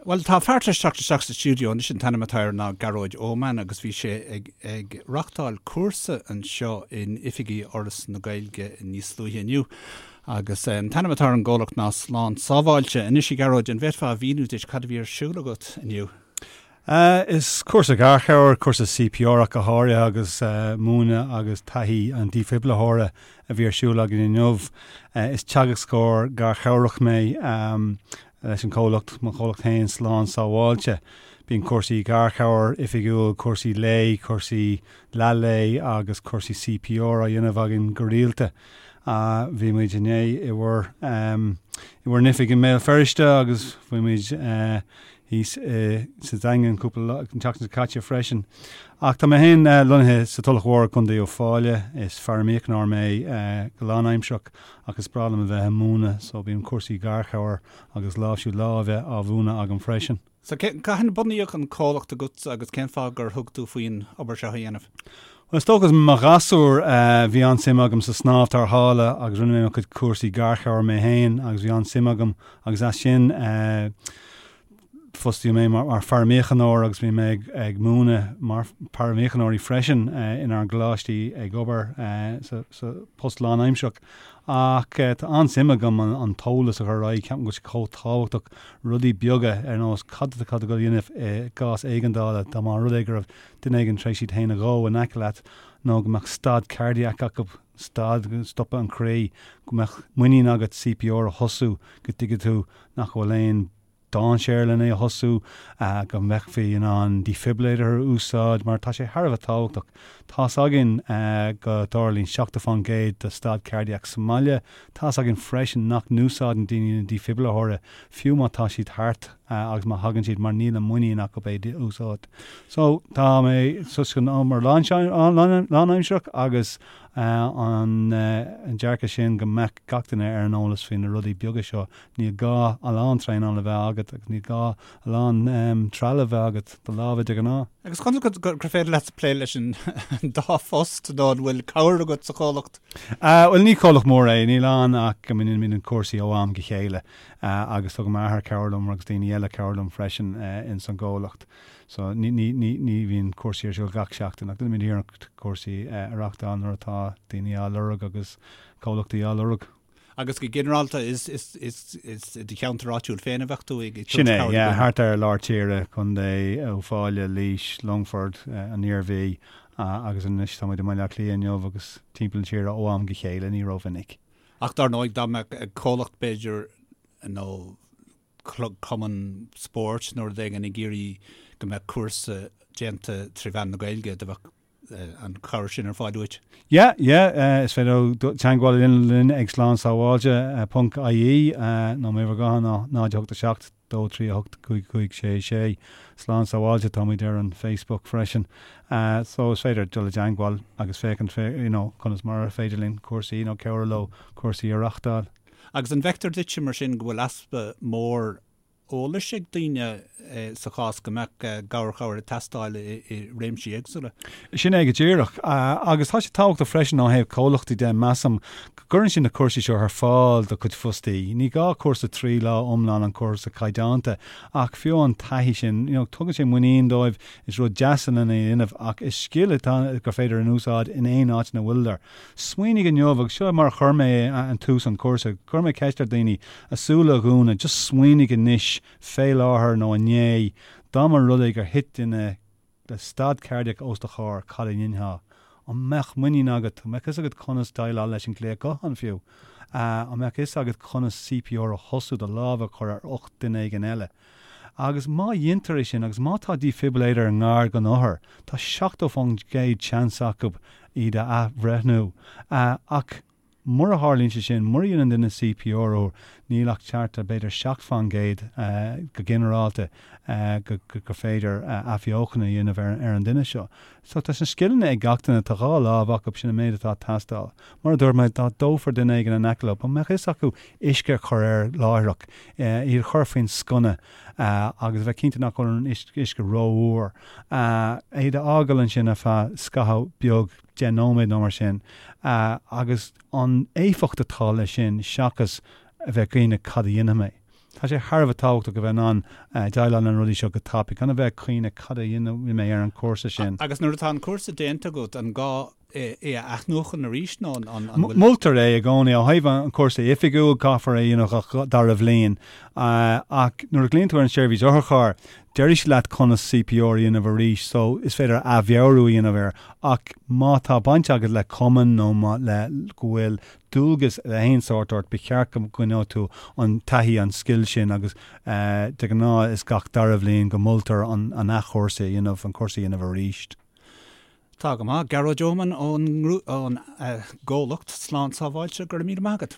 Bhuel, tá fear tar éis teacht isteach sa stiúideo anois, an t-ainm atá air ná Gearóid Eoman agus bhí sé ag ag reachtáil cúrsa anseo in oifigí Fhoras na Gaeilge níos luaithe inniu. Agus an t-ainm atá ar an gcomhlacht ná Slán Sábháilte. Anois, a Ghearóid, an bhféadfá a mhíniú duit cad a bhí ar siúl agat inniu? Is cúrsa garchabhair, cúrsa CPR ach go háirithe agus múineadh agus taithí an dífhibrileora a bhí ar siúl againn inniu. Is teagascóir garchabhrach mé. Leis an chomhlacht, mo chomhlacht féin, Slán Sábháilte. Bíonn cúrsaí garchabhair oifigiúil, cúrsaí lae, cúrsaí leath lae agus cúrsaí CPR á dhéanamh againn go rialta. Bhí muid inné i bhur i bhur n-oifig i mBéal Feirste agus bhí muid thíos sa Daingean cúpla lá, an tseachtain seo caite freisin. Ach tá mé féin lonnaithe sa Tulach Mhór i gContae Uíbh Fhailí. Is paraimíochaineoir mé go lánaimsearach. Ach is breá liom a bheith ag múineadh so bíonn cúrsaí garchabhair agus láimhsiú láimhe á mhúineadh agam freisin. So cathain a bunaíodh an comhlacht agatsa agus cén fáth gur thug tú faoin obair seo a dhéanamh? Bhuel is dócha i mo ghasúr bhí an-suim agam sa snámh tarrthála agus rinne mé mo chuid cúrsaí garchabhair mé féin agus bhí an-suim agam agus as sin Fostaíodh mé mar pharaimíochaineoir agus bhí mé ag múineadh mar pharaimíochaineoirí freisin inár gcoláistí ag obair sa post lánaimsearach. Ach tá an-suim agam an t-eolas a chur ar aghaidh, ceapaim go bhfuil sé chomh tábhachtach, rudaí beaga ar nós cad atá tú ag dul a dhéanamh i gcás éigeandála, dá mba rud é go raibh duine éigin tar éis iad féin a dhó in aice leat nó go mbeadh stad cardiac acu, stad, stopadh an chroí, go mbeadh muinín agat CPR a thosú, go dtuigfidh tú nach bhfuil aon dainséar len é a thosú, go mbeifí in ann defibrillator a úsáid mar tá sé thar a bheith tábhachtach. Tá's againn go dtarlaíonn 70% de stad cardiac sa mbaile. Tá's againn freisin nach n-úsáideann daoine na defibrillator fiú má tá siad thart agus má thagann siad mar níl an muinín acu é a úsáid. So tá mé sa obair lánaimsearach agus an dearcadh sin go mbeadh gach duine ar an eolas faoi na rudaí beaga seo Níl gá a lán traenála a bheith agat agus níl gá a lán trealamh a bheith agat, do lámha de ghnáth. Agus conas gur féidir leat plé leis an dá phost nó an bhfuil cabhair agat sa chomhlacht? Bhuel, ní comhlacht mór é, níl ann ach go ndéanaimid cúrsaí ó am go chéile agus tugann m'athair cabhair liom agus daoine eile cabhair liom freisin ins an gcomhlacht. So ní bhíonn cúrsaí ar siúl gach seachtain ach déanaimid iarracht cúrsaí a reachtáil nuair atá daoine á lorg agus comhlachtaí á lorg. Agus go ginearálta, is i do cheantar áitiúil féin a bheadh tú ag tabhairt Sin é, cabhair do yeah, dhaoine? thart ar lár tíre, Contae Uíbh Fhailí, Laois, Longfort, an Iarmhí, agus anois tá muid i mBaile Átha Cliath inniu agus timpeall na tíre ó am go chéile, ní rómhinic. Ach dar ndóigh, dá mbeadh comhlacht b'fhéidir nó cumann spóirt nó rud éigin ag iarraidh go mbeadh cúrsa déanta tré mheán na Gaeilge, do bheadh an chabhair sin ar fáil uait? Yeah, yeah, is féidir teagmháil a dhéanamh linn ag slánsábháilte ponc ie nó m'uimhir ghutháin ná 0 8 7 2 3 8 5 5 6 6. Slán Sábháilte, táimid ar an Facebook freisin. So is féidir dul i dteagmháil agus féachaint you know, conas mar ar féidir linn cúrsaí nó cabhrú leo cúrsaí a reachtáil. Agus an bhfeictear duitse mar sin go bhfuil easpa mór eolais ag daoine sa chás go mbeadh garchabhair ag teastáil i réimsí éagsúla. Sin é go díreach. Agus tá sé tábhachtach freisin ó thaobh comhlachtaí de, measaim, go gcuireann siad na cúrsaí seo ar fáil do chuid fostaí. Ní gá cúrsa 3 lá iomlán an cúrsa caighdeánta, ach fiú an taithí sin, you know, tugann sé muinín dóibh, is rud deas lena dhéanamh ach is scil atá gur féidir in úsáid in aon áit ina bhfuileadar. Smaoinigh inniu, agus seo mar a chuir mé an tús an cúrsa, chuir mé ceist ar daoine a súile a dhúnadh, just smaoinigh anois, fé láthair nó inné, dá mba rud é gur thit duine le stad cairdiach os do chomhair, cad a dhéanfá? An mbeadh muinín agat? An mbeadh fhios agat conas déileáil leis an glaoch gutháin fiú? An mbeadh fhios agat conas CPR a thosú, do lámh a chur ar ucht duine éigin eile? Agus má dheintear é sin, agus má tá defibrillator i ngar don othar, tá 70% seans acu iad a athbhreithniú. Ach mura tharlaíonn sé sin, mura dhéanann duine CPR orthu, níl ach thart ar b'fhéidir 7% go ginearálta gur féidir athbheochan a dhéanamh ar an duine seo. So tá na scileanna ag gach duine, tá dhá lámh acu, sin an méid atá ag teastáil. Mar a dúirt mé, dá dófar duine éigin in aice leo, an mbeadh fhios acu uisce a chur air láithreach, iad a chur faoin sconna agus a bheith cinnte nach bhfuil an uisce rófhuar. Iad a fhágáil ansin ar feadh scaitheamh beag, 10 nóiméad nó mar sin, agus an éifeacht atá leis sin seachas a bheith ag caoineadh cad a dhéanfaidh mé. Tá sé thar a bheith tábhachtach a bheith in ann déileáil le na rudaí seo go tapaidh, gan a bheith ag cuimhneamh cad a dhéanfaidh mé ar an chúrsa sin. Agus nuair atá an cúrsa déanta agat, an gá é a athnuachan arís nó an bhfuil. Moltar é i gcónaí. Ó thaobh an chúrsa oifigiúil, caithfear é a dhéanamh gach dara bhliain. Ach nuair a ghlaonn tú ar an seirbhís otharchairr, déarfaidh siad leat conas CPR a dhéanamh arís so is féidir athmheabhrú a dhéanamh air. Ach má tá baint agat le cumann nó má le go bhfuil dualgas de aon sórt ort, ba cheart go gcoinneodh tú an taithí, an scil sin agus de ghnáth is gach dara bhliain go moltar an athchúrsa a dhéanamh, an cúrsa a dhéanamh arís. Tá go maith. Gearóid Eoman ón gcomhlacht Slán Sábháilte, go raibh míle maith agat.